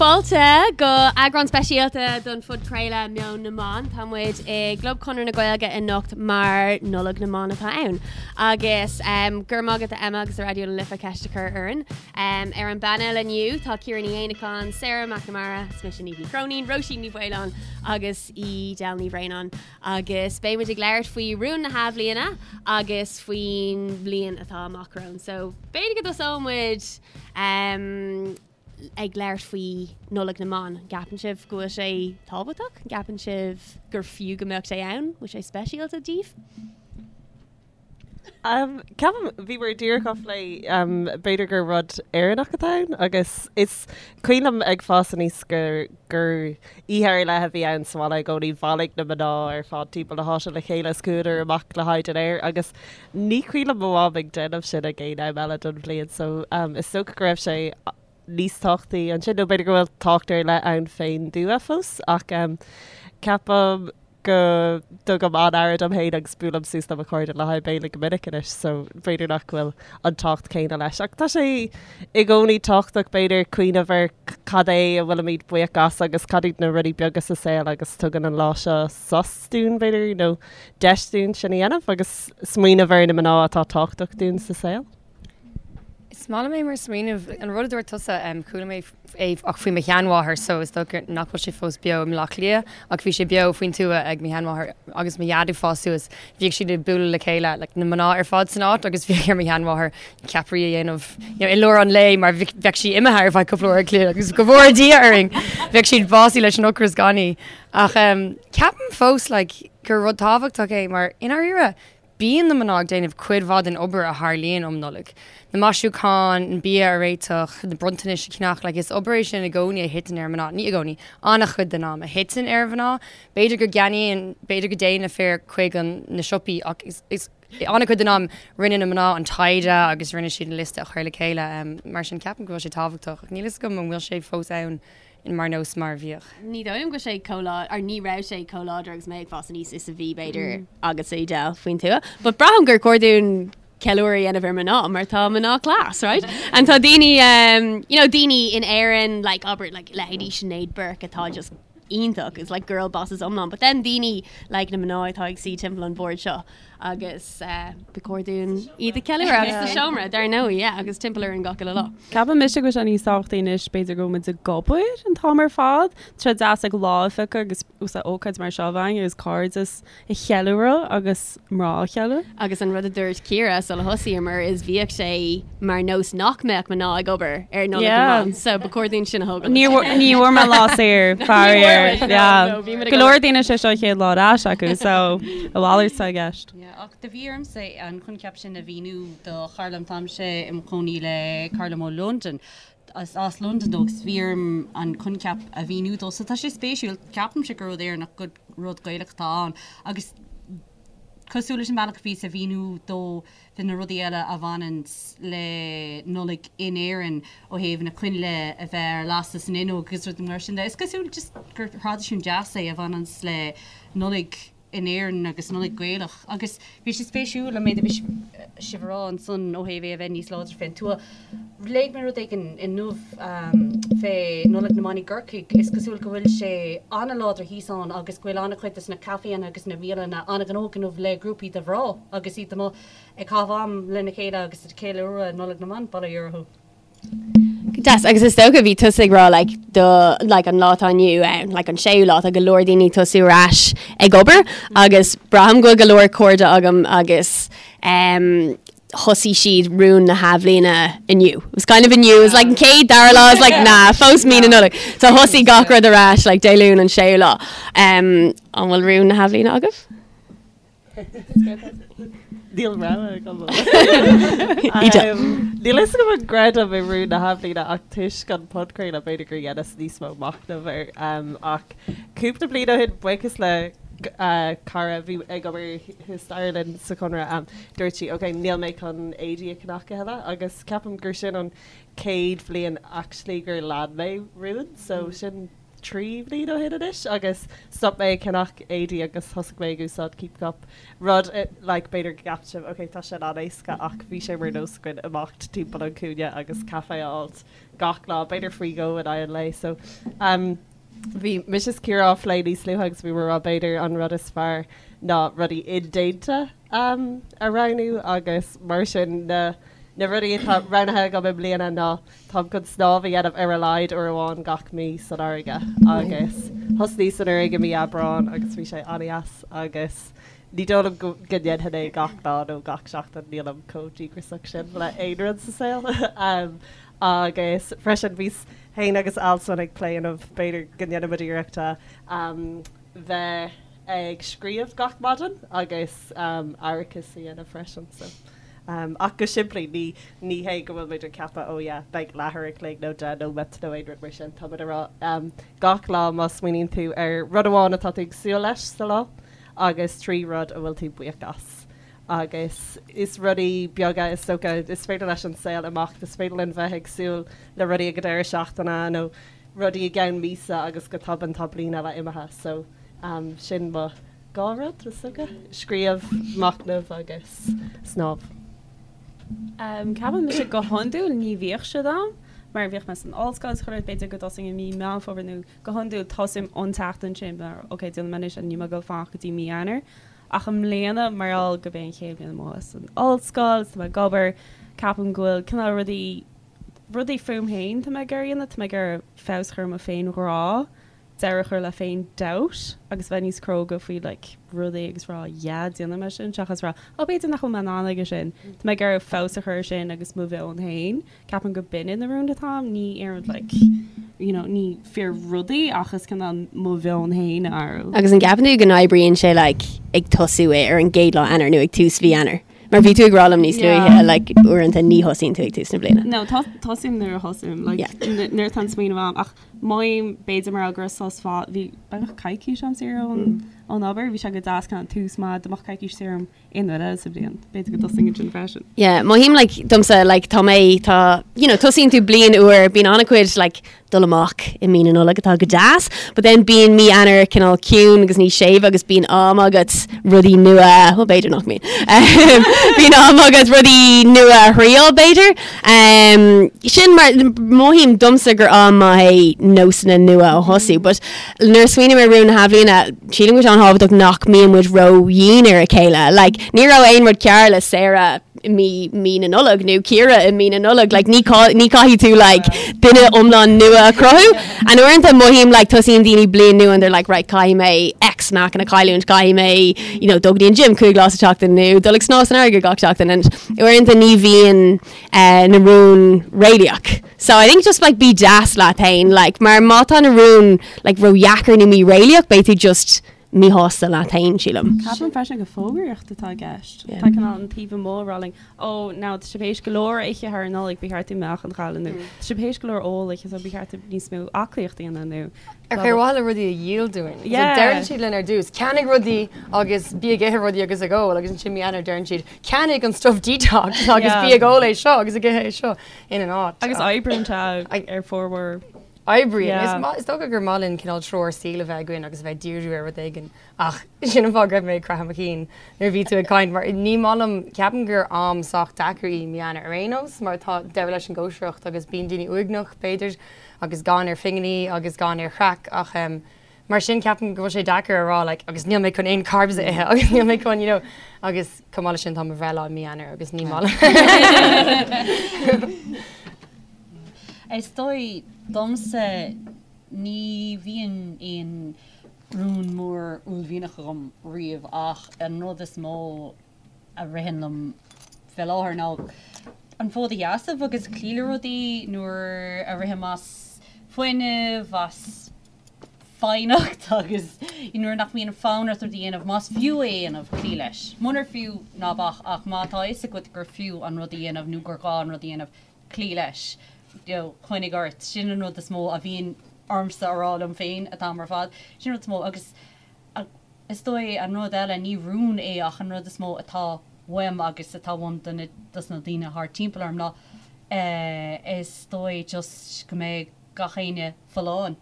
Fáilte go eagrán speisialta don phodchraoladh Meon na mBan. Tá muid i gClub Chonradh na Gaeilge anocht mar Nollaig na mBan atá ann. Agus um, go raibh maith agat a Emma agus a Raidió na Life ceist a chur orainn. Um, ar an bpainéal inniu tá Ciara Ní Éanacháin, Sarah McNamara, is mise Niamh Ní Chróinín, Róisín Ní Mhaoláin agus Edel Ní Bhraonáin. Agus beidh muid ag labhairt faoi rúin na hathbhliana agus faoin bhliain atá amach romhainn. So b'fhéidir go dtosóidh muid um, ag labhairt faoi Nollaig na mBan. An gceapann sibh go bhfuil sé tábhachtach? An gceapann sibh gur fiú go mbeadh sé ann? Bhfuil sé speisialta daoibh? Um, ceapaim bhíomar díreach á phlé um, b'fhéidir gur rud Éireannach atá ann agus is cuimhin liom ag fás aníos gur gur oíche ar leith a bhí ann sa bhaile i gcónaí bhailigh na mná ar fad timpeall na háite le chéile is chuadar amach le haghaidh dinnéir agus ní cuimhin liom mo mham ag déanamh sin ag aon am eile don bhliain so um, is dócha go raibh sé níos tábhachtaí ansin nó b'fhéidir go bhfuil tábhacht ar leith ann fén dtuath fós ach um, ceapaim go dtugaim an-aire dom féin agus buailim suas le mo chairde le haghaidh béile go minic anois so b'fhéidir nach bhfuil an tábhacht céanna leis. Ach tá sé i gcónaí tábhachtach b'fhéidir cuimhneamh ar cad é a bhfuilimid buíoch as agus cad iad na rudaí beaga sa saol agus tugann an lá seo sos dúinn b'fhéidir nó deis dúinn sin a dhéanamh agus smaoineamh ar na mná atá tábhachtach dúinn sa saol. Is maith liom é mar smaoineamh. An rud a dúirt tusa, chuala mé é ach faoi mo sheanmháthair so is dócha nach bhfuil sé fós beo i mBleá Cliath ach bhí sé beo faoin tuath ag mo sheanmháthair agus mo dhaid ag fás suas. Bhíodh siad ag bualadh le chéile, like na mná ar fad san áit agus bhíodh ar mo sheanmháthair ceapairí a dhéanamh you know i lár an lae mar bheadh sí imithe ar feadh cúpla uair an chloig agus go bhfóire Dia orainn bheadh siad básaithe leis an ocras gan í. Ach ceapaim fós like gur rud tábhachtach é mar i ndáiríre Bíonn na mná ag déanamh cuid mhaith den obair a tharlaíonn um Nollaig. Na maisiúcháin, an bia a réiteach, na bronntanais a cheannach, like is obair é sin i gcónaí a thiteann ar mná, ní i gcónaí, an-chuid den am, a thiteann ar mhná. B'fhéidir go gceannaíonn, b'fhéidir go dtéann na fir chuig an, na siopaí ach is, is, an-chuid den am rinne na mná an taighde agus rinne siad an liosta a chur le chéile. Mar sin ceapaim go bhfuil sé tábhachtach ach níl fhios agam an bhfuil sé fós ann. mar nós mar a bhíodh. Ní dóigh liom go bhfuil sé chomh lá, or ní raibh sé chomh láidir agus mé ag fás aníos is a bhí b'fhéidir agatsa Edel faoin tuath. But braithim gur chóir dúinn ceiliúradh a dhéanamh ar mná mar tá mná class, right? And tá daoine, um, you know, daoine in Éirinn, like, abair, like, leithéidí Sinéad Burke atá just iontach, is like girl bosses iomlán. But then daoine like na mná atá ag suí timpeall an bhoird seo agus ba chóir dúinn iad a cheiliúradh agus sa seomra, dar ndóigh, yeah, agus timpeall orainn gach uile lá. Ceapann mise go bhfuil sé níos tábhachtaí anois, b'fhéidir go bhfuil muid ag obair an t-am ar fad. Tá sé deas ag lá a phiocadh agus úsáid ócáid mar seo a bheith againn agus cairdeas a cheiliúradh agus mná a cheiliúradh. Agus an rud a dúirt Ciara sula thosaíomar is bhíodh sé mar nós nach mbeadh mná ag obair ar Nollaig na mBan, so ba chóir dúinn sin a thógáil. Ní bhfuair mé lá saor, faraor. Yeah. Go leor daoine sé seo an chéad lá ar ais acu, so a mhalairt atá i gceist. Yeah, ach do bhí ormsa an coincheap sin a mhíniú do chara liom, táimse i mo chónaí le cara liom ó Londain, as as Londain dó agus bhí orm an coincheap a mhíniú dó. So tá sé spéisiúil, ceapaimse gur rud Éireannach, gur rud Gaelach atá ann agus cosúil leis an bhealach a bhíos a mhíniú dó de na rudaí eile a bhaineanns le Nollaig in Éirinn ó thaobh na coinnle a bheith ar lasadh san fhuinneog agus rudaí mar sin de. Is cosúil just gur thraidisiún deas é a bhaineanns le Nollaig in Éirinn agus Nollaig Gaelach agus bhí sé spéisiúil an méid a bhí sibh a rá ansan ó thaobh é a bheith níos láidre fén tuath. Léigh mé rud éigin inniu fé Nollaig na mBan i gCorcaigh. Is cosúil go bhfuil sé an-láidir thíos ann agus go bhfuil an-chuid des na caiféanna agus na bialanna an-ghnóthach inniu le grúpaí de mhná agus iad amuigh ag caitheamh am lena chéile agus ag ceiliúradh Nollaig na mBan, bail ó Dhia orthu. Go deas, agus is dócha bhí tusa ag rá like do like an lá atá inniu ann, like an séú lá, tá go leor daoine ag tosú ar ais ag obair agus braithim go bhfuil go leor cairde agam agus um, thosaigh siad rún na hathbhliana inniu. It was kind of inniu, it was like an chéad dara lá, it was like nah, fós mí na Nollag. So thosaigh gach rud ar ais like Dé Luain an séú lá. Um, an bhfuil rún na hathbhliana agaibh? Níl rogha agam. Níl fhios agam an gcreidim i rún na hathbhliana ach toisc an podchraoladh b'fhéidir gur dheineas níos mó machnamh air. Ach cúpla bliain ó shin, buíochas le cara a bhí ag obair thuas staighre linn sa Chonradh, dúirt sí ok, níl mé chun éadaí a cheannach a thuilleadh agus ceapaim gur sin an chéad bhliain actually gur lean mé rún so sin. 3 bhliain ó shin anois agus stop mé ag ceannach éadaí agus thosaigh mé ag úsáid Keep Cup. Rud like b'fhéidir go gceapann sibh ok tá sin an-éasca ach bhí sé mar nós againn imeacht timpeall an cúinne agus caife a fháilt gach lá, b'fhéidir faoi dhó in aghaidh an lae. So um bhí mise is Ciara á phlé níos luaithe agus bhí muid ag rá b'fhéidir an rud is fearr ná rudaí indéanta um a roghnú agus mar sin na na rudaí atá roghnaithe agam i mbliana ná Táim chun snámh a dhéanamh ar a laghad uair amháin gach mí san fharraige agus thosnaíos anuraidh i mí Aibreáin agus bhí sé an-deas agus ní dóigh liom go ndéanfainn é gach lá nó gach seachtain, nílim chomh díograiseach sin le aon rud sa saol. Agus freisin bhíos féin agus Alswyn ag plé inniu b'fhéidir go ndéanfaimid iarracht a bheith ag scríobh gach maidin agus aireachas a dhéanamh freisin so. Ach go simplí, ní ní hé go bhfuil muid ag ceapadh oh yeah, beidh leathuair a chloig nó 10 nóiméad nó aon rud mar sin. Tá muid ag rá gach lá má smaoiníonn tú ar rud amháin atá tú ag súil leis sa lá agus 3 rud a bhfuil tú buíoch as. Agus is rudaí beaga is dócha, is féidir leis an saol imeacht, is féidir linn bheith ag súil le rudaí ag an deireadh seachtaine nó rudaí i gceann míosa agus go tobann tá bliain eile imithe. So sin mo. 2 rud, is dócha, scríobh, machnamh agus snámh. Ceapaim mise go hiondúil ní bhíodh siad ann mar bhíodh mé san ollscoil is chuile rud, b'fhéidir go dtosaím i mí Meán Fómhair nó go hiondúil tosaím an tseachtain sin mar ok déanfaidh mé anois níl mé ag dul fanacht go dtí mí Eanáir. Ach i mbliana mar gheall gurb é an chéad bhliain amuigh as an ollscoil is tá mé ag obair, ceapaim go bhfuil cineál rudaí rudaí fúm féin tá mé ag iarraidh a dhéanamh, tá mé ag iarraidh feabhas a chur ar mo féinghrá deireadh a chur le féin doubt agus bheith níos cróga faoi like rudaí agus rá yeah déanfaidh mé sin seachas rá oh b'fhéidir nach bhfuil mé in ann aige sin. Tá mé ag iarraidh feabhas a chur ar sin agus mo mheon féin. Ceapaim go b'in na rúin atá a'm, ní aon rud like you know ní fíor rudaí ach is cineál mo mheon féin a athrú. Agus an gceapann tú go n-oibríonn sé like ag tosú é ar an gcéad lá Eanáir nó ag tús mhí Eanáir? Mar bhí tú ag rá liom níos luaithe like uaireanta ní thosaíonn tú ag tús na bliana. No, tosaím nuair a thosaím like nuair atá an smaoineamh a'm ach Mothaím, b'fhéidir mar go raibh sos fada, bhí beagnach coicís a'm saor ón ón obair, bhí sé go deas kind of tús maith, dá mbeadh coicís saor a'm aon uair eile sa bhliain, b'fhéidir go dtosóinn ansin freisin. Yeah, mothaím like domsa like tá mé tá you know tosaíonn tú bliain úr, bíonn an-chuid like dul amach i mí na Nollag atá go deas, but then bíonn mí Eanáir cineál ciúin agus níos séimhe agus bíonn am agat rudaí nua, well b'fhéidir nach mbíonn, bíonn am agat rudaí nua a thriail b'fhéidir. Sin mar mothaím domsa gur am maith é nósanna nua a thosú, but nuair a smaoiním ar rún na hathbhliana, sílim go bhfuil sé an-thábhachtach nach mbíonn muid ró-dhian ar a chéile. Like, ní raibh aon rud cearr le Sarah i mí, mí na Nollag nó Ciara i mí na Nollag. Like, ní, ní caithfidh tú like, duine iomlán nua a chruthú. And uaireanta mothaím like, tosaíonn daoine bliain nua and they're like, right, caithfidh mé X meáchan a chailliúint, caithfidh mé, you know, dul go dtí an gym 5 lá sa tseachtain nó dul ag snámh san fharraige gach seachtain. And uaireanta ní bhíonn eh, na rúin réalaíoch. So I think just like bí deas leat féin, like, mar má tá na rúin like, ródheacair nó míréalaíoch, beidh tú just míshásta leat féin, sílim. Ceapaim freisin gur fógraíocht atá i gceist. Tá cineál an taobh amuigh ag rá linn, ó, now tá sibh théis go leor a ithe thar an Nollaig, ba cheart daoibh meáchan a chailleadh nó tá sibh théis go leor ól a ithe so ba cheart daoibh níos mó aclaíocht a dhéanamh nó Ar blah mhaithe le rudaí a dhíol dúinn. So deireann siad linn ar dtús, ceannaigh rudaí agus bí ag ithe rudaí agus ag ól agus ansin mí Eanáir deireann siad, ceannaigh an stuff detox agus bí ag ól é seo agus ag ithe é seo ina áit. Agus oibríonn sé ar formhór. Oibríonn. Is dócha gur maith linn cineál treoir saoil a bheith againn agus a bheith ag díriú ar rud éigin ach sin an fáth go raibh mé ag croitheadh mo chinn nuair a bhí tú ag caint mar ní maith liom, ceapaim gur am sách deacair í mí Eanáir ar aon nós mar tá deireadh leis an gcóisireacht agus bíonn daoine uaigneach b'fhéidir agus gann ar phinginí agus gann ar chraic ach mar sin ceapaim go bhfuil sé deacair a rá like agus níl mé chun aon carbs a ithe agus níl mé chun you know agus chomh maith leis sin tá mo bhreithlá i mí Eanáir agus ní maith liom. Is dóigh domsa ní bhíonn aon rún mór uaillmhianach agam riamh ach an rud is mó a ritheann liom fé láthair ná an fód a sheasamh agus cloí le rudaí nuair a rithim as fuinneamh, as foighneacht agus nuair nach mbíonn fonn ort rud a dhéanamh, más fiú é a dhéanamh, cloí leis. Munar fiú, ná bac ach má tá a fhios agat gur fiú an rud a dhéanamh nó gur gá an rud a dhéanamh, cloí leis. You know, coinnigh ort. Sin an rud is mó a bhíonn ormsa a rá liom féin an t-am ar fad. Sin an rud is mó agus Is dóigh an rud eile, ní rún é ach an rud is mó atá uaim agus atá uaim do na, dos na daoine thart timpeall orm ná eh is dóigh just go mbeidh gach éinne folláin.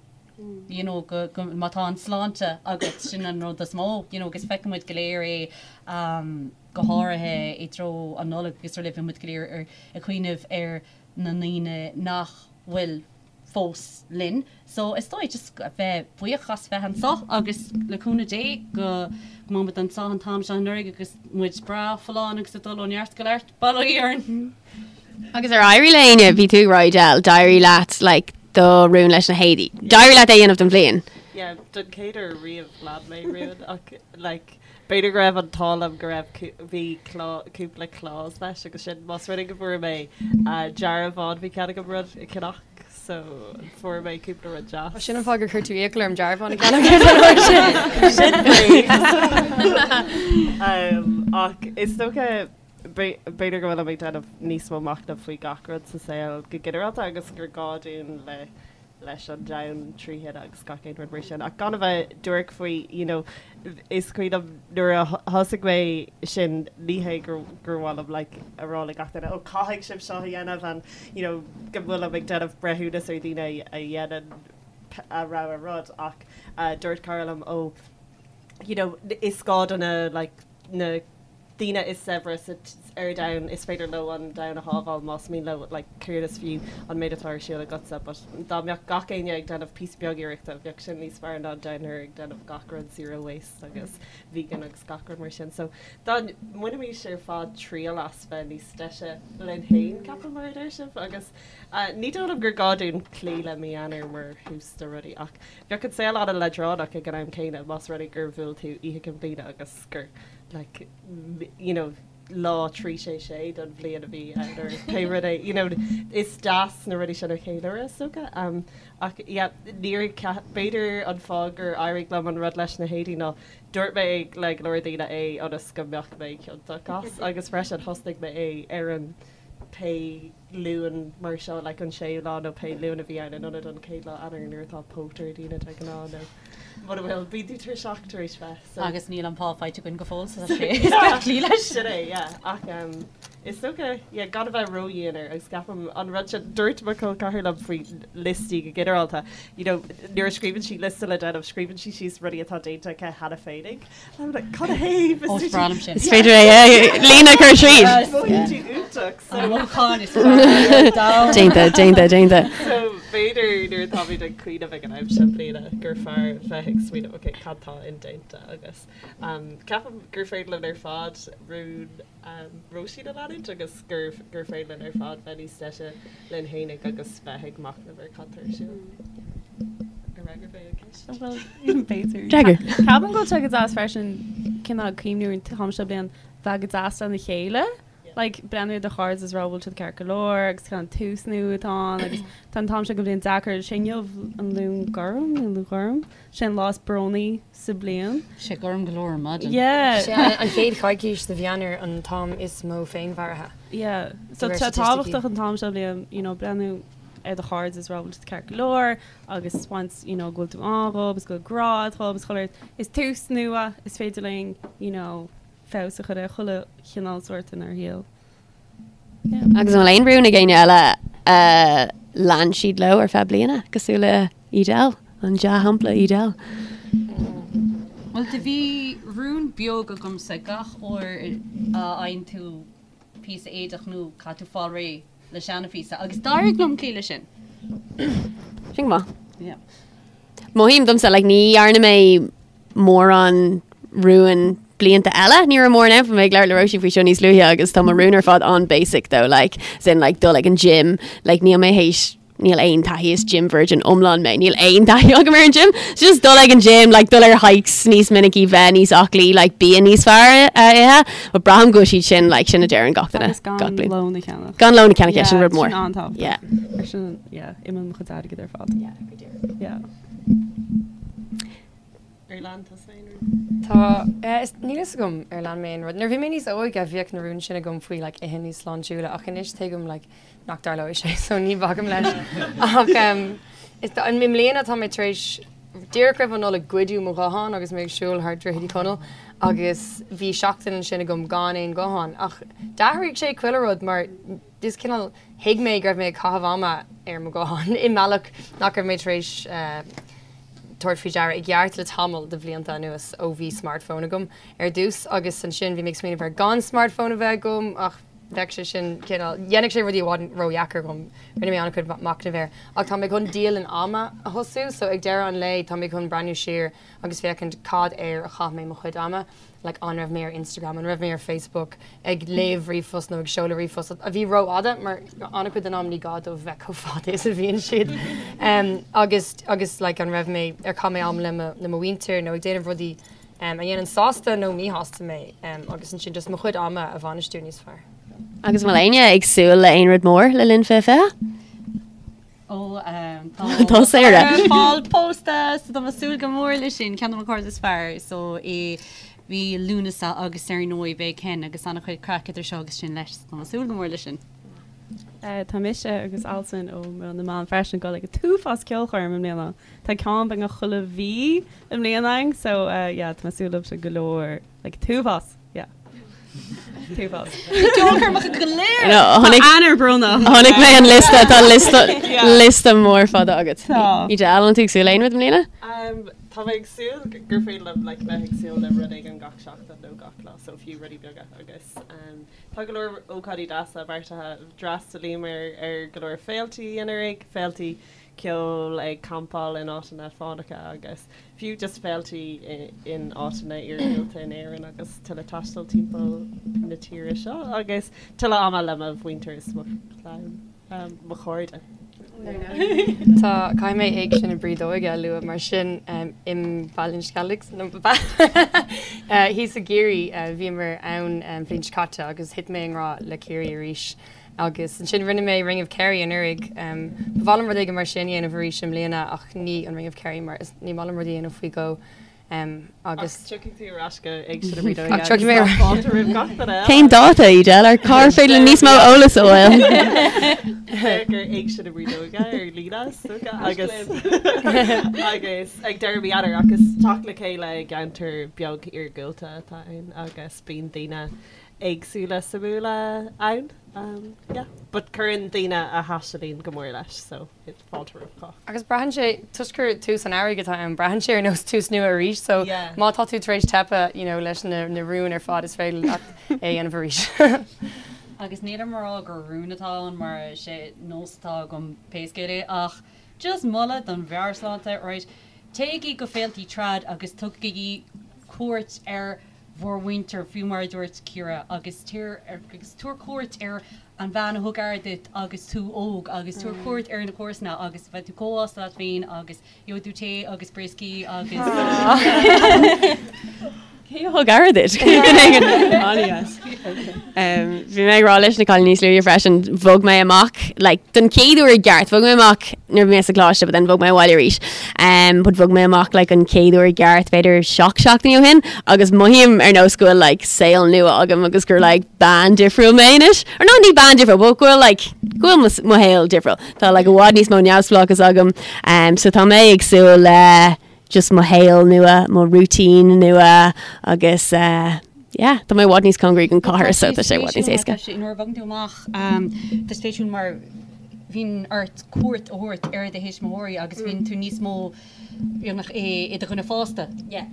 You know, go, go, má tá an sláinte agat, sin an rud is mó, you know, agus feiceann muid go léir é, um, go háirithe i dtreo an Nollaig agus araile bíonn muid go léir ar, ag cuimhneamh ar na ndaoine nach bhfuil fós linn. So is dóigh just bheith buíoch as bheith anseo agus le cúnamh Dé go go mbeidh muid anseo an t-am seo anuraidh agus muid breá folláin agus ag dul ó neart go neart. Bail ó Dhia orainn! Agus ar éirigh le éinne, bhí tú ag rá Edel, d'éirigh leat like do rún leis na héadaí. D'éirigh leat é a dhéanamh don bhliain. Yeah, don chéad uair riamh lean mé rún ach like b'fhéidir go raibh an t-ádh liom go raibh bhí cúpla clause leis agus sin más rud é go bhfuair mé dearbhán bhí cead agam rud a cheannach so fuair mé cúpla rud deas. Sin an fáth gur chuir tú iachall orm dearbhán a cheannach ar an uair sin. Sin brí. Ach is dócha b'fhéidir go bhfuilim ag déanamh níos mó machnaimh faoi gach rud sa saol go ginearálta agus gur gá dúinn le leis an domhan trí thine agus gach aon rud mar sin. Ach gan a bheith duairc faoi, you know, is cuimhin liom nuair a thosaigh mé sin, ní hé gur gur mhaith liom like a rá le gach duine, oh caithfidh sibh seo a dhéanamh and you know go bhfuilim ag déanamh breithiúnas ar dhaoine a dhéanann a rogha rud ach dúirt cara liom, oh you know is gá do na like na daoine is saibhre sa ar domhan, is féidir leo an domhan a shábháil más mian leo, like céard is fiú an méid atá ar siúl agatsa but dá mbeadh gach éinne ag déanamh píosa beag iarrachta bheadh sin níos fearr ná down here ag déanamh gach rud zero waste agus vegan agus gach rud mar sin so dá mbainfimis ar fad triail as bheith níos deise linn féin ceapaim mar a deir sibh agus ní dóigh liom gur gá dúinn cloí le mí Eanáir mar thús do rudaí ach bheadh an saol an-leadránach ag an am céanna más rud é gur bhuail tú Oíche Chinn Bliana agus gur like you know lá 3 6 6 don bhliain a bhí ann or pé rud é you know is deas na rudaí sin a cheiliúradh is dócha um, ach yeah níor b'fhéidir an fáth gur éirigh liom an rud leis na héadaí ná dúirt mé le go leor daoine é ionas go mbeadh mé ciontach as agus freisin thosnaigh mé é ar an pé Luan mar seo, like an séú lá nó pé Luan a bhí ann in ionad an chéad lá Eanáir nuair atá póit ar daoine de ghnáth nó mura bhfuil, bíonn tú tuirseach tar éis bheith so. Agus níl an pá faighte againn go fóill so tá sé is beag cloí leis. Sin é, yeah. Ach um, is dócha, yeah, gan a bheith ródhian air agus ceapaim an rud sin, dúirt mo chol ceathar liom faoi liostaí go ginearálta, you know, nuair a scríobhann sí liosta le déanamh, scríobhann sí síos rudaí atá déanta aici cheana féinig. Cad a thaobh? Ó, is breá liom sin. Is féidir é líne a chur tríd. Mothaíonn tú iontach. So Mothúchán is fearr ar domhan. Déanta, déanta, déanta. So b'fhéidir nuair atáimid ag cuimhneamh ag an am seo bliana gur fearr bheith ag smaoineamh ok cad tá indéanta agus um, ceapaim gur féidir linn ar fad rún um, Róisín a leanúint agus gur gur féidir linn ar fad bheith níos deise linn fhéinig agus bheith ag machnamh ar cad tá ar siúl. Ar fhreagair mé an ceist? Bhuel, b'fhéidir. D'fhreagair. Ceapaim go bhfuil sé go deas freisin cineál cuimhniú ar an t-am seo bliain bheith go deas lena chéile. Like, breathnú ar do chairde is rá bhfuil siad ceart go leor agus cineál tús nua atá ann agus tá an t-am seo den bhliain deacair. Sé inniu an Luan Gorm nó Luan Ghorm? Sé an lá is brónaí sa bhliain. Sé gorm go leor ar maidin. Yeah. Sé an chéad choicís de mhí Eanáir an t-am is mó féinmharaithe. Yeah. So De réir tá staitisticí. tábhachtach an t-am seo bliain, you know, breathnú ar do chairde is rá bhfuil siad ceart go leor agus once, you know, go bhfuil tú ann dhób is go bhfuil grá agat dhób is chuile shórt. Is tús nua, is féidir linn, you know, feabhas a chur ar chuile chineál sórt inár shaol. Agus an bhfuil aon rún ag éinne eile a lean siad leo ar feadh bliana, cosúil le Edel, an dea-shampla Edel? Bhuel, do bhí rún beag agamsa gach uair a fhaigheann tú píosa éadach nua, caithfidh tú fáil réidh le seana-phíosa agus d'éirigh liom cloí leis sin. Sin go maith. Yeah. Mothaím domsa, like, ní dhearna mé mórán rúin blianta eile. Ní raibh mórán ann, bhí mé ag labhairt le Róisín faoi seo níos luaithe agus tá mo rún ar fad an-basic though, like, as in like dul ag an gym, like níl mé théis níl aon taithí is gym virgin iomlán mé, níl aon taithí agam ar an gym. So just dul ag an gym, like dul ar hikes níos minicí, bheith níos aclaí, like bia níos fearr a ithe. But braithim go bhfuil siad sin, like sin a deireann gach duine. Agus gan gach bliain. lón a cheannach. Gan lón a cheannach, yeah, sin Yeah, rud mór. Sin an-tábhachtach. Yeah. Ar sin, yeah, imíonn mo chuid airgid ar fad. Yeah, go díreach. Yeah. Ar lean tusa aon rún? Tá, eh, is, níl fhios agam ar lean mé aon rud. Nuair a bhí mé níos óige bhíodh na rúin sin agam faoi like ithe níos sláintiúla ach anois tuigim like nach dtarlóidh sé so ní bhacaim leis. Ach em, is, i mbliana tá mé tar éis, díreach roimh an Nollaig goideadh mo ghuthán agus mé ag siúl thar Droichead Uí Chonaill agus bhí seachtain ansin agam gan aon ghuthán ach d'athraigh sé chuile rud mar is cineál thuig mé go raibh mé ag caitheamh ama ar mo ghuthán i mbealach nach raibh mé tar éis eh. tabhairt faoi deara i gceart le tamall de bhlianta anuas ó bhí smartphone agam ar dtús agus ansin bhí mé ag smaoineamh ar gan smartphone a bheith agam ach bheadh sé sin cineál, dhéanfadh sé rudaí i bhfad ródheacair dhom. Rinne mé an-chuid machnaimh air. Ach tá mé chun dialann ama a thosú so ag deireadh an lae tá mé chun breathnú siar agus féachaint cad air a chaith mé mo chuid ama, like an raibh mé ar Instagram, an raibh mé ar Facebook ag léamh ríomhphost nó ag seoladh ríomhphost a bhí rófhada mar an-chuid den am ní gá dóibh bheith chomh fada is a bhíonn siad agus agus like an raibh mé ar chaith mé am le mo le mo mhuintir nó ag déanamh rudaí a dhéanann sásta nó míshásta mé agus ansin just mo chuid ama a bhainistiú níos fearr. Agus an bhfuil éinne ag súil le aon rud mór le linn 2020? Ó tá Sarah ag fáil pósta so tá mé ag súil go mór leis sin, ceann de mo chairde is fearr so i mí Lúnasa agus ar ndóigh beidh Ken agus an-chuid craic idir seo agus sin leis so tá mé ag súil go mór leis sin. Tá mise agus Alison ó Meon na mBan freisin ag dul ag an t-uafás ceolchoirm i mbliana. Tá ceann beagnach chuile mhí i mbliana againn so yeah tá mé ag súil leo sin go leor like t-uafás yeah. T-uafás. Ceolchoirmeacha go léir! No, tháinig Eanáir brónach. Tháinig mé an liosta tá liosta liosta mór fada agat. Tá. Edel, an bhfuil tú ag súil le aon rud i mbliana? Tá mé ag súil gur féidir liom like bheith ag súil le rud éigin gach seachtain nó gach lá so fiú rudaí beaga agus tá go leor ócáidí deasa beartaithe. D'fhreastalaíomar ar go leor féiltí anuraidh, féiltí ceoil, ag campáil in áiteanna fánacha agus fiú just féiltí in áiteanna iargúlta in Éirinn agus tuilleadh taistil timpeall na tíre seo agus tuilleadh ama le mo mhuintir is mo chlann, mo chairde. Tá, caithfidh mé Éigse na Brídóige a lua mar sin i mBaile an Sceilg, thíos i gCiarraí, bhíomar ann an bhliain seo caite agus thit mé i ngrá le Ciarraí arís. Agus ansin rinne mé Ring of Kerry anuraidh. Ba mhaith liom rud éigin mar sin a dhéanamh arís i mbliana ach ní an Ring of Kerry mar is ní maith liom rudaí a dhéanamh faoi dhó. Agus. Ach tiocfaidh tú ar ais go Éigse na Brídóige. Ach tiocfaidh mé ar ais. Fáilte roimh gach duine eile. Cén dáta, Edel? Ar cár féidir linn níos mó eolas a fháil? Féach ar Éigse na Brídóige ar líne is dócha agus agus ag deireadh mí Eanáir ach is teacht le chéile i gceantar beag iargúlta atá ann agus bíonn daoine éagsúla suimiúla ann. Yeah. But cuireann daoine a thaistealaíonn go mór leis so fáilte roimh chách. Agus braitheann sé, toisc gur tús an earraigh atá ann, braitheann sé ar nós tús nua arís so Yeah. má tá tú tar éis teipeadh you know leis na na rúin ar fad is féidir leat é a dhéanamh arís. Agus nílim ag rá gur rún atá ann mar is é nós atá agam pé scéal é ach just moladh don mheabhairshláinte, right, téigí go féiltí trad agus tugaigí cuairt ar bhur mhuintir, fiú mar a dúirt Ciara, agus tabhair agus tabhair cuairt ar an bhean a thug aire duit agus tú óg agus tabhair cuairt ar na comharsana agus beidh tú chomh sásta leat féin agus gheobhaidh tú tae agus brioscaí agus. Cé a thug aire duit? Bhí mé ag rá leis na cailíní níos luaithe freisin, bhog mé amach like, don chéad uair i gceart, bhog mé amach nuair a bhí mé sa choláiste but then bhog mé abhaile arís. Um, but bhog mé amach like, an chéad uair i gceart b'fhéidir 7 seachtainí ó shin agus mothaím ar nós go bhfuil like, saol nua agam agus gur like, bean difriúil mé anois. Or no, ní bean difriúil, but go bhfuil like, go bhfuil mo, mo shaol difriúil. Tá like, i bhfad níos mó neamhspleáchas agam. Um, so tá mé ag súil le just mo shaol nua, mo routine nua agus uh, yeah, tá mé i bhfad níos cóngaraí don chathair so tá sé i bhfad níos éasca. Nuair a bhogann tú amach tá spéisiúil mar bhíonn ort cuairt a thabhairt ar do thuismitheoirí agus bíonn tú níos mó beagnach i do dhuine fásta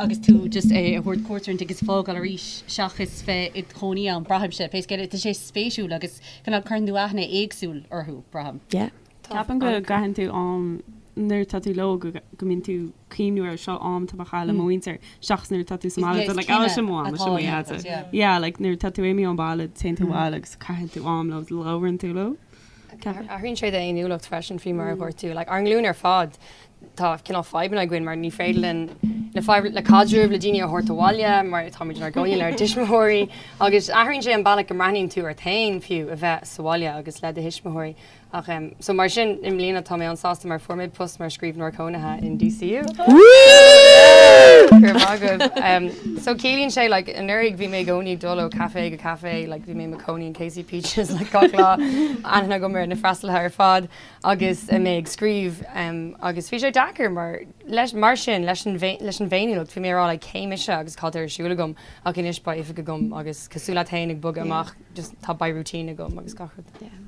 agus tú just ag thabhairt cuairt orthu agus fágáil arís seachas bheith i do chónaí ann, braithimse, pé scéal é, tá sé spéisiúil agus cineál cuireann tú aithne éagsúil orthu, braithim. Yeah. Ceapaim go gcaitheann tú am nuair atá tú leo go go mbíonn tú cuimhniú ar seo am atá mé a chaitheamh le mo mhuintir seachas nuair atá tú sa mbaile like oh sin mo am sin mo dheaide. Yeah like nuair atá tú imithe ón baile téann tú abhaile agus caitheann tú am leo labhrann tú leo. Athraíonn sé d'fhéiniúlacht freisin faoi mar a dhúirt tú. Like ár nglúin ar fad tá cineál fadhbanna againn mar ní féidir linn le fadhb le caidreamh le daoine a thabhairt abhaile mar táimid inár gcónaí lenár dtuismitheoirí agus athraíonn sé an bealach go mbreathnaíonn tú ort féin fiú a bheith sa bhaile agus le do thuismitheoirí. Ach em so mar sin i mbliana tá mé an-sásta mar fuair mé post mar scríbhneoir cónaithe in DCU. Go raibh maith agaibh. Em so ciallaíonn sé like anuraidh bhí mé i gcónaí ag dul ó caife go caife like bhí mé i mo chónaí in Casey Peaches like gach lá aithne agam ar na freastalaithe ar fad agus mé ag scríobh em agus bhí sé deacair mar leis mar sin leis an leis an bhféiniúlacht bhí mé ag rá like cé mise agus cad tá ar siúl agam ach anois beidh oifig agam agus cosúil leat féin ag bogadh amach just tá beidh routine agam agus gach rud. Yeah.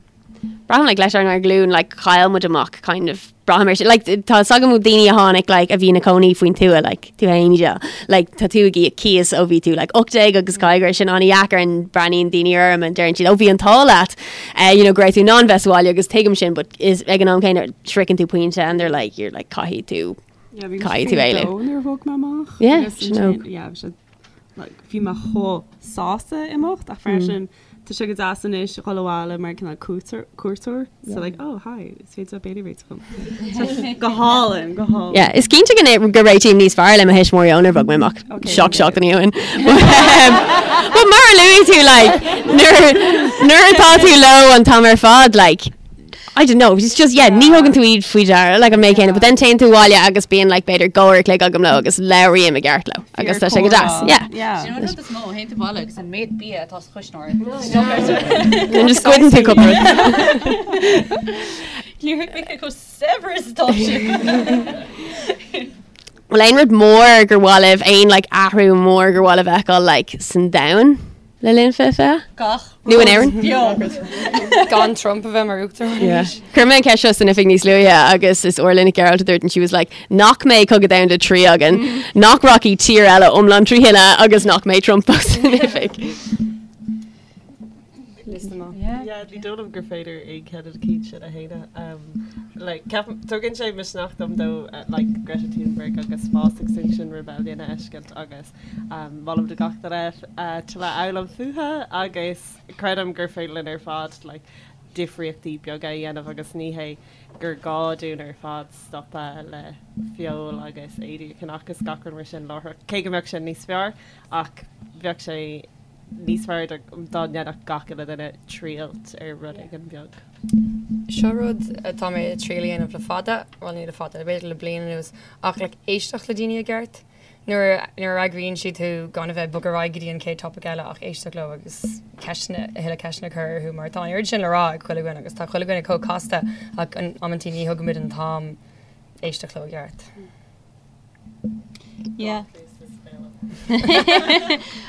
Braithim like leis ár nglúin like chaill muid amach kind of braithim ar sin like tá 's agam daoine a tháinig like a bhí ina cónaí faoin tuath like tú féin Edel like tá tú ag íoc cíos ó bhí tú like 18 agus caithfidh go raibh sin an-dheacair and breathnaíonn daoine orm and deireann siad ó bhí an t-ádh leat uh, you know go raibh tú in ann bheith sa bhaile agus tuigim sin but is ag an am céanna sroicheann tú pointe and they're like you're like caithfidh tú Yeah, bhí Caithfidh tú éalú. nuair a bhog mé amach. Yeah, Agus sin óg. ansin, yeah, bhí sé, like, bhí mé chomh sásta imeacht ach freisin Tá sé go deas anois dhul abhaile mar cineál cuairteoir so like oh hi is féidir leat béile a réiteach dom. Go hálainn, go hálainn. Yeah, is cinnte go go réitím níos fearr le mo thuismitheoirí ónar bhog mé amach seacht seachtainí ó shin. But mar a luaigh tú like nuair nuair atá tú leo an t-am ar fad like I don't know, it's just, yeah, ní thugann tú iad faoi deara, like an méid céanna, but then téann tú abhaile agus bíonn like b'fhéidir go uair a chloig agam leo agus labhraím i gceart leo agus tá sé go deas, yeah. Yeah. Sin an rud is mó, théann tú abhaile agus an méid bia atá sa chuisneoir. Then just goideann tú cúpla rud. Níor thuig mé cé chomh saibhir is atá sé. Bhfuil aon rud mór gur mhaith libh, aon like athrú mór gur mhaith libh a fheiceáil like san domhan? Le linn 2020? Gach Nó in Éirinn? beo. Gan Trump a bheith mar uachtarán arís. Chuir mé an ceist seo san oifig níos luaithe agus is Orla Nic Gearailt a dúirt and she was like nach mbeidh Cogadh Domhanda 3 againn, nach rachaidh tír eile iomlán trí thine agus nach mbeidh Trump fós in oifig. Liosta maith. Yeah, ní dóigh liom gur féidir aon cheann de na cinn sin a shéanadh. Like, ceapaim, tugann sé misneach dom though, like Greta Thunberg agus fás Extinction Rebellion a fheiscint agus Molaim do gach duine tuilleadh a fhoghlaim fúthu agus creidim gur féidir linn ar fad like difríochtaí beaga a dhéanamh agus ní hé gur gá dúinn ar fad stopadh le feoil agus éadaí a cheannach is gach rud mar sin láithreach, cé go mbeadh sin níos fearr ach bheadh sé níos fearr dá ndéanfadh gach uile duine triail ar rud éigin beag. Seo rud atá mé ag triail a dhéanamh le fada, bhuel ní le fada, b'fhéidir le bliain anuas, ach like éisteacht le daoine i gceart. Nuair a fhreagraíonn siad thú gan a bheith ag bogadh ar aghaidh go dtí an chéad topaic eile ach éisteacht leo agus ceisteanna, a thuilleadh ceisteanna a chur orthu mar tá an oiread sin le rá ag chuile dhuine agus tá chuile dhuine chomh casta ach amantaí ní thugaimid an t-am éisteacht leo i gceart. Yeah.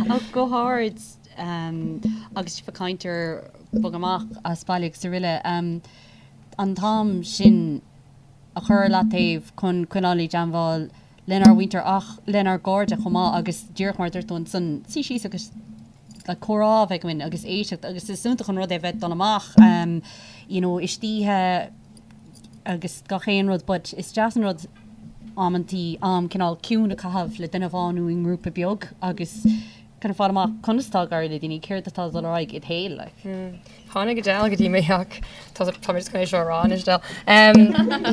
Ach go hard agus sibh ag caint ar bogadh amach as baile agus araile, an t-am sin a chur ar leataobh chun coinneáil i dteangmháil lenár mhuintir ach lenár gcairde chomh maith agus díreach mar a dúirt tú ansan, suí síos agus like comhrá a bheith againn agus éisteacht agus is iontach an rud é bheith ag dul amach you know istoíche agus gach aon rud but is deas an rud amantaí am cineál ciúin a chaitheamh le duine amháin nó i ngrúpa beag agus kind of fáil amach conas atá ag éirí le daoine, céard atá ag dul ar aghaidh id shaol like. Tháinig Adele go dtí mé ach tá tá mé just chun é seo a rá anois Adele.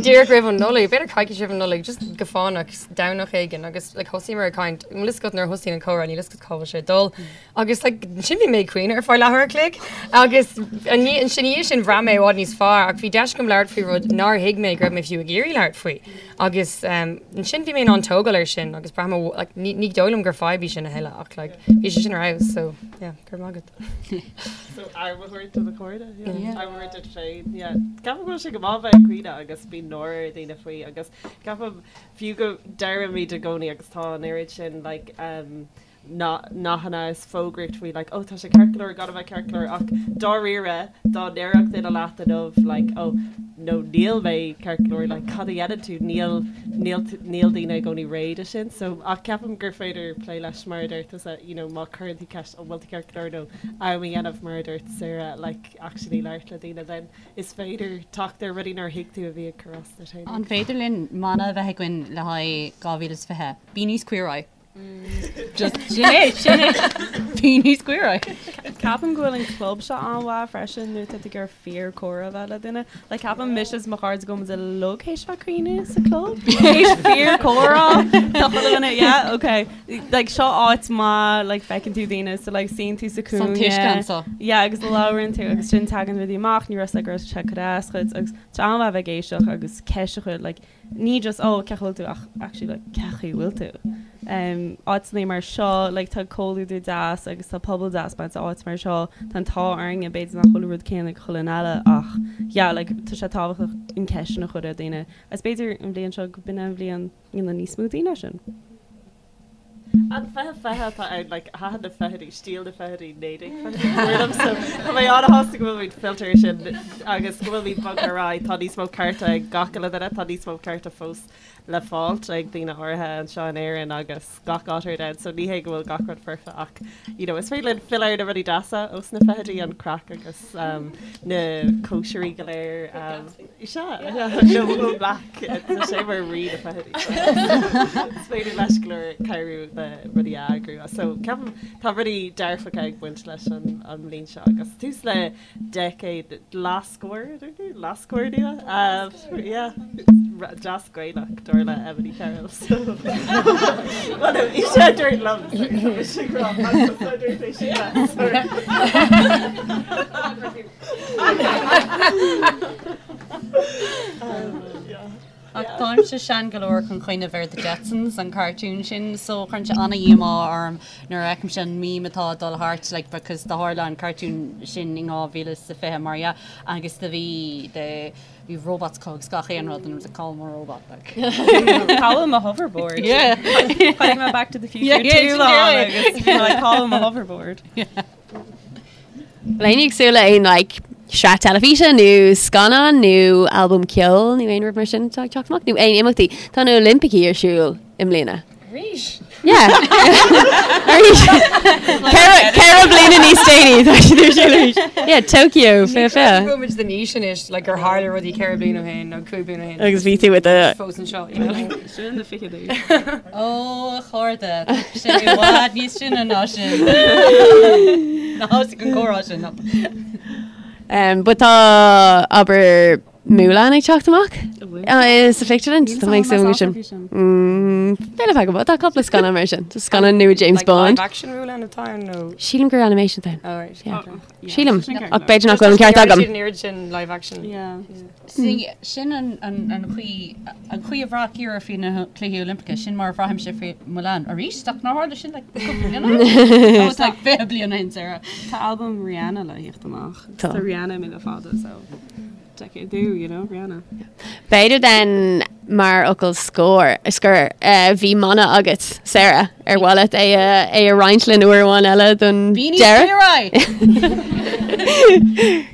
Díreach roimh an Nollaig, b'fhéidir coicís roimh an Nollaig, just go fánach, Domhnach éigin agus like thosaíomar ag caint, an bhfuil fhios agat nuair a thosaíonn an comhrá níl fhios agat cá bhfuil sé ag dul. Agus like ansin bhí mé ag caoineadh ar feadh leathuair a chloig agus ina dhiaidh sin bhraith mé i bhfad níos fearr ach bhí deis agam labhairt faoi rud nár thuig mé go raibh mé fiú ag iarraidh labhairt faoi. Agus ansin bhí mé in ann tógáil air sin agus braithim like ní ní dóigh liom gur fadhb í sin a thuilleadh ach like bhí sé sin ar fheabhas so yeah go raibh maith agat. So am a thabhairt do do chairde, yeah. Am a thabhairt duit féin, yeah. Ceapaim go bhfuil sé go maith bheith ag caoineadh agus bíonn náire ar dhaoine faoi agus ceapaim fiú go deirimid i gcónaí agus tá an oiread sin like um, nathanna is fógraíocht faoi like oh tá sé ceart go leor gan a bheith ceart go leor ach dáiríre dá ndéarfadh duine leat inniu like oh no níl mé ceart go leor like cad a dhéanann tú níl níl níl daoine i gcónaí réidh do sin so ach ceapaim gur féidir plé leis mar a deir tusa you know má chuireann tú ceist an bhfuil tú ceart go leor nó am a dhéanamh mar a dúirt Sarah like actually labhairt le daoine then is féidir teacht ar rudaí nár thuig tú a bhí ag cur as duit féin. An féidir linn mana a bheith againn le haghaidh 2020? Bí níos queer-eye. Just sin é, sin é. Bí níos queer-eye. Ceapaim go bhfuil an club seo an-mhaith freisin nuair atá tú ag iarraidh fíor comhrá a bheith le duine. Like ceapaim mise is mo chairde go bhfuil muid uilig théis bheith ag caoineadh sa club. Théis fíor comhrá. Tá chuile dhuine, yeah, okay. Like seo áit maith, like feiceann tú daoine, so like suíonn tú sa Tá an cúinne. t-uisce anseo. Yeah, agus labhrann tú agus sin tagann rudaí amach, ní raibh fhios agat go raibh sé ag cur as duit agus tá an-mhaith a bheith ag éisteacht agus ceist a chur like ní just oh cén chaoi a bhfuil tú ach actually like cén chaoi a bhfuil tú. Um, áiteanna mar seo like tá comhluadar deas agus tá pobal deas baint áit mar seo tá an t-ádh orainne b'fhéidir nach bhfuil an rud céanna ag chuile dhuine eile ach yeah like tá sé tábhachtach an ceist sin a chur ar daoine. Agus b'fhéidir an bhliain seo go b'in an bhliain ina níos mó daoine sin. An 2020 atá ann, like, thaitin na fichidí, stíl na fichidí, 1920idí go mór liom, so tá mé an-shásta go bhfuilimid fillte ar sin agus go bhfuilimid bogtha ar aghaidh. Tá níos mó cearta ag gach uile duine, tá níos mó cearta fós le fáilt ag daoine áirithe anseo in Éirinn agus gach áit ar domhan, so ní hé go bhfuil gach rud foirfe ach, you know, is féidir linn filleadh ar na rudaí deasa ós na fichidí, an craic agus um, na cóisirí go léir. Um, sea, no, Will Black, tá sé mar rí na fichidí. Is féidir leis go leor cabhrú le rudaí a eagrú. So ceapaim tá rudaí dearfacha ag baint leis an, an mbliain seo agus tús le decade leathscór, leathscór nua? Yeah, deas Gaelach, dar le Emily Carroll. So, well, no, í sé dúirt liom, sorry, tá mise ag rá, ach dúirt é sin leat, sorry. Yeah. Ach táimse sean go leor chun cuimhneamh ar The Jetsons, an cartoon sin, so cuireann sé an-dhíomá orm nuair a fheicimse an meme atá ag dul thart, like, because do tharla an cartoon sin in 2020, mar dhea, agus do bhí, the, bhí robots acu agus gach aon rud, and it was like, cá bhfuil mo robot, like. Cá bhfuil mo hoverboard. Yeah. Chonaic mé Back to the Future Yeah, yeah, 2 lá yeah. agus bhí mé like, cá bhfuil mo hoverboard. Bhfuil éinne ag súil le aon like, sraith teilifíse nó scannán nó albam ceoil nó aon rud mar sin atá ag teacht amach nó aon imeachtaí. Tá na Oilimpicí ar siúl i mbliana. Arís? Yeah. Arís. Ceithre bliana níos déanaí tá siad ar siúl arís. Yeah, Tokyo, fé fé. Go muid den aois anois like gur tharla rudaí 4 bliana ó shin nó 5 bliana ó shin. Agus bhí tú with the fós anseo, you know, like. Sin na fichidí. Ó, a chairde, tá sé i bhfad níos sine ná sin. Ná thosaigh an comhrá sin. Um, but tá abair Mulan ag teacht amach uh, sa phictiúrlann. Tá mé ag súil go sin. Mm, B'fhéidir feadh go tá cúpla scannán mar sin. Tá scannán nua James Like Bond. live action Mulan atá ann nó? Sílim gur animation atá ann. Oh, right. Yeah. Okay. Sílim ach b'fhéidir nach bhfuil an ceart agam. Siad an oiread sin live action. Yeah. See, sin an chaoi, an chaoi a bhraith Ciara faoi na Cluichí Oilimpeacha, sin mar a bhraithimse faoi Mulan arís, ach nár tharla sin like cúpla bliain ó shin? That was like 20 bliain ó shin, Sarah. Tá albam Rihanna le theacht amach. Tá. Tá Rihanna imithe le fada, so decade do, you know, Rihanna. B'fhéidir then mar fhocal scór, scoir, bhí mana agat, Sarah, ar mhaith leat é a, é a roinnt linn uair amháin eile don Bí níos deireadh? saoire!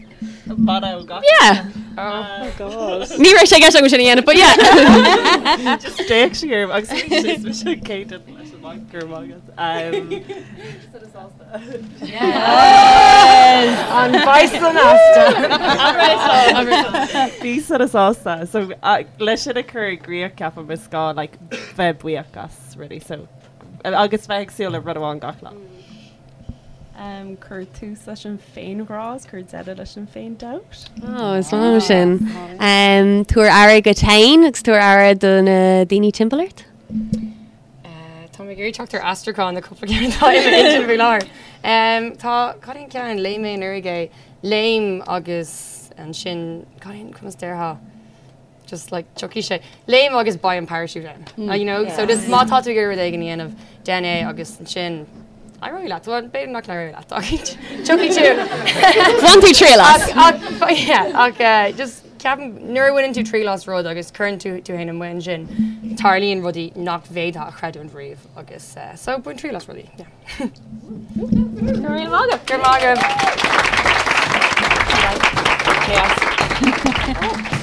Mana ó gach Yeah. Oh God. Ní raibh sé i gceist agam sin a dhéanamh, but yeah. Just d'fhéach sí orm agus bhí sé mise céad leis an maith gur maith agat. An bison asta. Bí sona sásta. So uh, leis sin a chur i gcrích ceapaim is gá like, bheith buíoch as rudaí. So, agus bheith ag súil le rud amháin gach lá. Um, cuir tús leis an féinghrá is cuir deireadh leis an féin-dabht. Oh, is maith liom sin. Um, tabhair aire duit féin agus tabhair aire do na daoine timpeall ort. Uh, tá mé ag iarraidh teacht ar aistriúchán na cúpla ceann atá i m'intinn faoi láthair. Um, tá cad é an ceann léigh mé anuraidh é léim agus ansin cad é an conas déarfá just like tiocfaidh sé léim agus beidh an parachute ann mm. you know so just má tá tú ag iarraidh rud éigin a dhéanamh déan é agus ansin éireoidh leat well b'fhéidir nach n-éireoidh leat ach tiocfaidh tú Bhain tú triail as. ach ach yeah ach uh, just ceapaim nuair a bhaineann tú triail as rud agus cuireann tú tú féin amuigh ansin tarlaíonn rudaí nach bhféadfá a chreidiúint riamh agus uh, so bain triail as rudaí yeah. Go raibh maith agat. Go raibh maith agaibh.